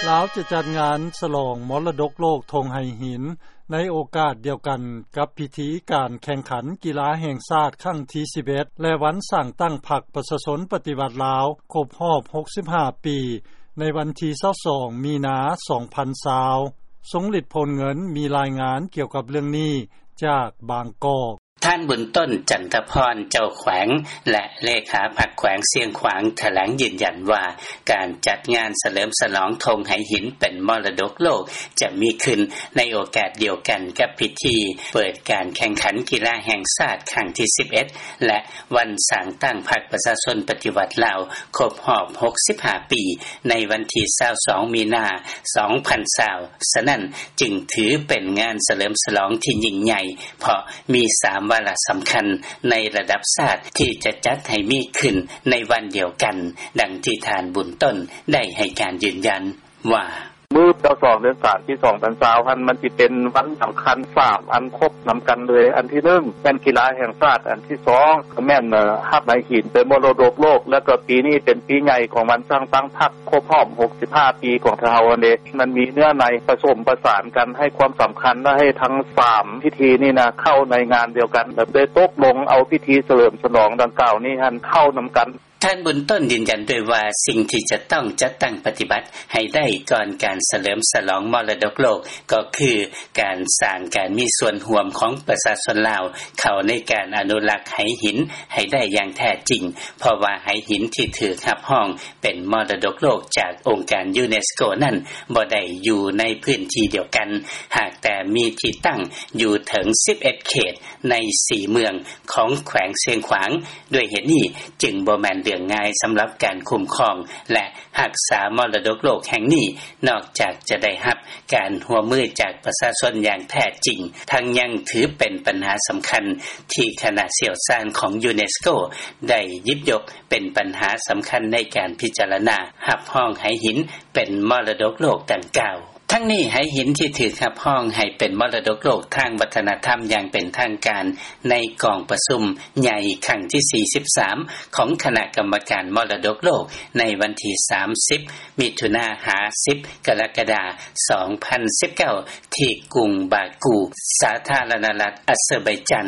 ລາວຈະຈັດງານສະຫຼອງມໍລະດົກໂລກທົ່ງໄຫຫີນ ໃນໂອກາດດຽວກັນກັບພິທີການແຂ່ງຂັນກິລາແຫ່ງຊາດຄັ້ງທີສິບເອັດ ແລະ ວັນສ້າງຕັ້ງພັກປະຊາຊົນປະຕິວັດລາວຄົບຮອບຫົກສິບຫ້າປີ ໃນວັນທີຊາວສອງມີນາສອງພັນຊາວ. ຊົງລິດ ໂພນເງິນ ມີລາຍງານກ່ຽວກັບເລື່ອງນີ້ຈາກບາງກອກ. ທ່ານ ບຸນຕົ້ນ ຈັນທະພອນ ເຈົ້າແຂວງ ແລະ ເລຂາພັກແຂວງຊຽງຂວາງ ຖະແຫຼງຢືນຢັນວ່າ ການຈັດງານສະເຫຼີມສະຫຼອງທົ່ງໄຫຫີນເປັນມໍລະດົກໂລກ ຈະມີຂຶ້ນໃນໂອກາດດຽວກັນກັບພິທີເປີດການແຂ່ງຂັນກິລາແຫ່ງຊາດຄັ້ງທີສິບເອັດ ແລະ ວັນສ້າງຕັ້ງພັກປະຊາຊົນປະຕິວັດລາວຄົບຮອບຫົກສິບຫ້າປີ ໃນວັນທີຊາວສອງມີນາສອງພັນຊາວ. ສະນັ້ນຈຶ່ງຖືເປັນງານສະເຫຼີມສະຫຼອງທີ່ຍິ່ງໃຫຍ່ ເພາະມີສາມວາລະສຳຄັນໃນລະດັບຊາດທີ່ຈະຈັດໃຫ້ມີຂຶ້ນໃນວັນດຽວກັນ, ດັ່ງທີ່ທ່ານ ບຸນຕົ້ນ ໄດ້ໃຫ້ການຢືນຢັນວ່າ: ມື້ຊາວສອງ ເດືອນສາມ ປີສອງພັນຊາວຫັ້ນ ມັນຊິເປັນວັນສຳຄັນສາມອັນຄົບນຳກັນເລີຍ. ອັນທີໜຶ່ງ ແມ່ນກິລາແຫ່ງຊາດ, ອັນທີສອງ ແມ່ນຮັບໄຫຫີນເປັນມໍລະດົກໂລກ ແລ້ວກໍປີນີ້ເປັນປີໃຫຍ່ຂອງວັນສ້າງຕັ້ງພັກ ຄົບຮອບຫົກສິບຫ້າປີຂອງເຮົາຫັ້ນເດ. ມັນມີເນື້ອໃນປະສົມປະສານກັນ ໃຫ້ຄວາມສຳຄັນ ແລະ ໃຫ້ທັງສາມພິທີນີ້ນະເຂົ້າໃນງານດຽວກັນ ແລະ ໄດ້ຕົກລົງເອົາພິທີສະເຫຼີມສະຫຼອງດັ່ງກ່າວນີ້ຫັ້ນເຂົ້ານຳກັນ. ທ່ານ ບຸນຕົ້ນ ຢືນຢັນດ້ວຍວ່າ ສິ່ງທີ່ຈະຕ້ອງຈັດຕັ້ງປະຕິບັດໃຫ້ໄດ້ກ່ອນການສະເຫຼີມສະຫຼອງມໍລະດົກໂລກ ກໍຄືການສ້າງການມີສ່ວນຮ່ວມຂອງປະຊາຊົນລາວເຂົ້າໃນການອະນຸລັກໄຫຫີນໃຫ້ໄດ້ຢ່າງແທ້ຈິງ, ເພາະວ່າໄຫຫີນທີ່ຖືກຮັບຮອງເປັນມໍລະດົກໂລກຈາກອົງການຢູເນສໂກນັ້ນ ບໍ່ໄດ້ຢູ່ໃນພື້ນທີ່ດຽວກັນ, ຫາກແຕ່ມີທີ່ຕັ້ງຢູ່ເຖິງສິບເອັດເຂດໃນສີ່ເມືອງຂອງແຂວງຊຽງຂວາງ. ດ້ວຍເຫດນີ້ຈຶ່ງບໍ່ແມ່ນເລື່ອງງ່າຍສຳລັບການຄຸ້ມຄອງ ແລະ ຮັກສາມໍລະດົກໂລກແຫ່ງນີ້ ນອກຈາກຈະໄດ້ຮັບການຮ່ວມມືຈາກປະຊາຊົນຢ່າງແທ້ຈິງ, ທັງຍັງຖືເປັນບັນຫາສຳຄັນທີ່ຄະນະຊ່ຽວຊານຂອງຢູເນສໂກໄດ້ຫຍິບຍົກເປັນບັນຫາສຳຄັນໃນການພິຈາລະນາຮັບຮອງໄຫຫີນເປັນມໍລະດົກໂລກດັ່ງກ່າວ. ທັງນີ້ ໄຫຫີນທີ່ຖືກຮັບຮອງໃຫ້ເປັນມໍລະດົກໂລກທາງວັດທະນະທຳຢ່າງເປັນທາງການ ໃນກອງປະຊຸມໃຫຍ່ຄັ້ງທີສີ່ສິບສາມ ຂອງຄະນະກຳມະການມໍລະດົກໂລກ ໃນວັນທີສາມສິບ ມິຖຸນາ ຫາ ສິບ ກໍລະກະດາ ສອງພັນສິບເກົ້າ ທີ່ກຸງບາກູ ສາທາລະນະລັດອາເຊີໄບຈານ,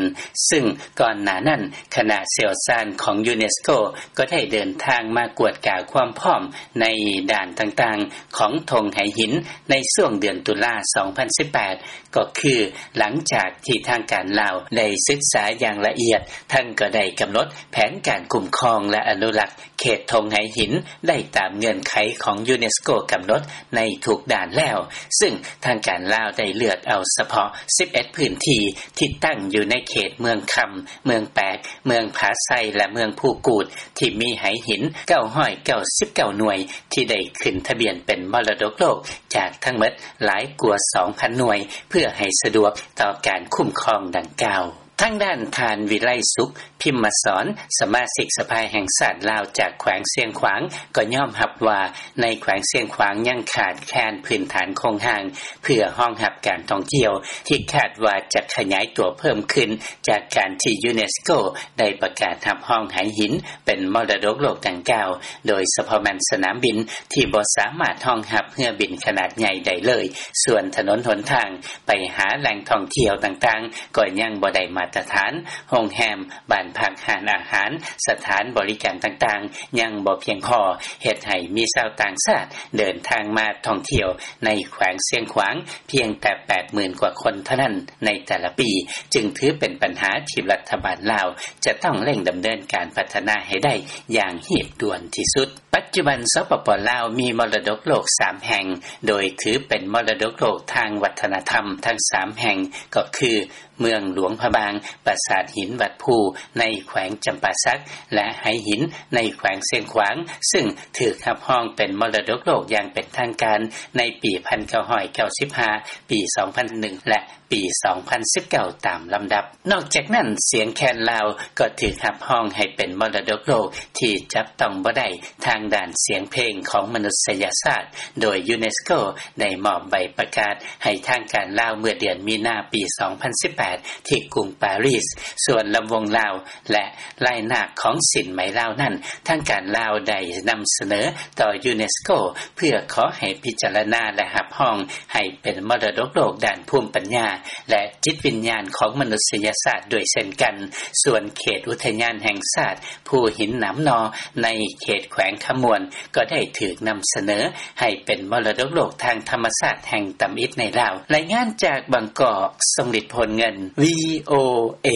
ຊຶ່ງກ່ອນໜ້ານັ້ນ ຄະນະຊ່ຽວຊານຂອງຢູເນສໂກກໍໄດ້ເດີນທາງມາກວດກາຄວາມພ້ອມໃນດ້ານຕ່າງໆຂອງທົ່ງໄຫຫີນ ໃນຊ່ວງເດືອນຕຸລາ ສອງພັນສິບແປດ ກໍຄືຫຼັງຈາກທີ່ທາງການລາວໄດ້ສຶກສາຢ່າງລະອຽດ, ທັງກໍໄດ້ກຳນົດແຜນການຄຸ້ມຄອງ ແລະ ອະນຸລັກເຂດທົ່ງໄຫຫີນໄດ້ຕາມເງື່ອນໄຂຂອງຢູເນສໂກກຳນົດໃນທຸກດ້ານແລ້ວ, ຊຶ່ງທາງການລາວໄດ້ເລືອກເອົາສະເພາະສິບເອັດພື້ນທີ່ທີ່ຕັ້ງຢູ່ໃນເຂດເມືອງຄຳ, ເມືອງແປກ, ເມືອງຜາໄຊ ແລະ ເມືອງພູກູດ ທີ່ມີໄຫຫີນເກົ້າຮ້ອຍເກົ້າສິບເກົ້າໜ່ວຍ ທີ່ໄດ້ຂຶ້ນທະບຽນເປັນມໍລະດົກໂລກຈາກທັງໝົດຫຼາຍກວ່າສອງພັນໜ່ວຍ ເພື່ອໃຫ້ສະດວກຕໍ່ການຄຸ້ມຄອງດັ່ງກ່າວ. ທາງດ້ານທ່ານ ວິໄລສຸກ ພິມມະສອນ ສະມາຊິກສະພາແຫ່ງຊາດລາວຈາກແຂວງຊຽງຂວາງ ກໍຍອມຮັບວ່າ ໃນແຂວງຊຽງຂວາງຍັງຂາດແຄນພື້ນຖານໂຄງຮ່າງ ເພື່ອຮອງຮັບການທ່ອງທ່ຽວ ທີ່ຄາດວ່າຈະຂະຫຍາຍຕົວເພີ່ມຂຶ້ນ ຈາກການທີ່ຢູເນສໂກໄດ້ປະກາດຮັບຮອງໄຫຫີນເປັນມໍລະດົກໂລກດັ່ງກ່າວ, ໂດຍສະເພາະແມ່ນສະໜາມບິນທີ່ບໍ່ສາມາດຮອງຮັບເຮືອບິນຂະໜາດໃຫຍ່ໄດ້ເລີຍ, ສ່ວນຖະໜົນຫົນທາງໄປຫາແຫຼ່ງທ່ອງທ່ຽວຕ່າງໆກໍຍັງບໍ່ໄດ້ມາດຕະຖານ, ໂຮງແຮມ, ບ້ານພັກ, ຮ້ານອາຫານ, ສະຖານບໍລິການຕ່າງໆຍັງບໍ່ພຽງພໍ, ເຮັດໃຫ້ມີຊາວຕ່າງຊາດເດີນທາງມາທ່ອງທ່ຽວໃນແຂວງຊຽງຂວາງ ພຽງແຕ່ແປດໝື່ນກວ່າຄົນເທົ່ານັ້ນໃນແຕ່ລະປີ, ຈຶ່ງຖືເປັນບັນຫາທີ່ລັດຖະບານລາວຈະຕ້ອງເລັ່ງດຳເນີນການພັດທະນາໃຫ້ໄດ້ຢ່າງຮີບດ່ວນທີ່ສຸດ. ປັດຈຸບັນ ສປປ ລາວ ມີມໍລະດົກໂລກສາມແຫ່ງ, ໂດຍຖືເປັນມໍລະດົກໂລກທາງວັດທະນະທຳທັງສາມແຫ່ງ ກໍຄື ເມືອງຫຼວງພະບາງ, ປາສາດຫີນວັດພູໃນແຂວງຈຳປາສັກ ແລະ ໄຫຫີນໃນແຂວງຊຽງຂວາງ, ຊຶ່ງຖືກຮັບຮອງເປັນມໍລະດົກໂລກຢ່າງເປັນທາງການໃນປີພັນເກົ້າຮ້ອຍເກົ້າສິບຫ້າ, ປີສອງພັນໜຶ່ງ ແລະ ປີ ສອງພັນສິບເກົ້າ ຕາມລຳດັບ. ນອກຈາກນັ້ນ ສຽງແຄນລາວ ກໍຖືກຮັບຮອງໃຫ້ເປັນມໍລະດົກໂລກ ທີ່ຈັບຕ້ອງບໍ່ໄດ້ ທາງດ້ານສຽງເພງ ຂອງມະນຸດສະຍະຊາດ ໂດຍ UNESCO ໄດ້ມອບໃບປະກາດ ໃຫ້ທາງການລາວ ເມື່ອເດືອນມີນາ ປີ ສອງພັນສິບແປດ ທີ່ກຸງປາຣີສ. ສ່ວນລຳວົງລາວ ແລະ ລາຍນາກຂອງສິນໄໝລາວນັ້ນ ທາງການລາວໄດ້ນຳສະເໜີຕໍ່ UNESCO ເພື່ອຂໍໃຫ້ພິຈາລະນາ ແລະ ຮັບຮອງໃຫ້ເປັນມໍລະດົກໂລກ ດ້ານພູມປັນຍາ ແລະ ຈິດວິນຍານ ຂອງມະນຸດສະຍະຊາດ ດ້ວຍເຊັ່ນກັນ. ສ່ວນເຂດອຸທະຍານແຫ່ງຊາດ ພູຫີນໜາມໜໍ່ ໃນເຂດແຂວງຄຳມ່ວນ ກໍໄດ້ຖືກນຳສະເໜີໃຫ້ເປັນມໍລະດົກໂລກ ທາງທຳມະຊາດ ແຫ່ງທຳອິດໃນລາວ. ລາຍງານຈາກບາງກອກ ຊົງລິດ ໂພນເງິນ VOA.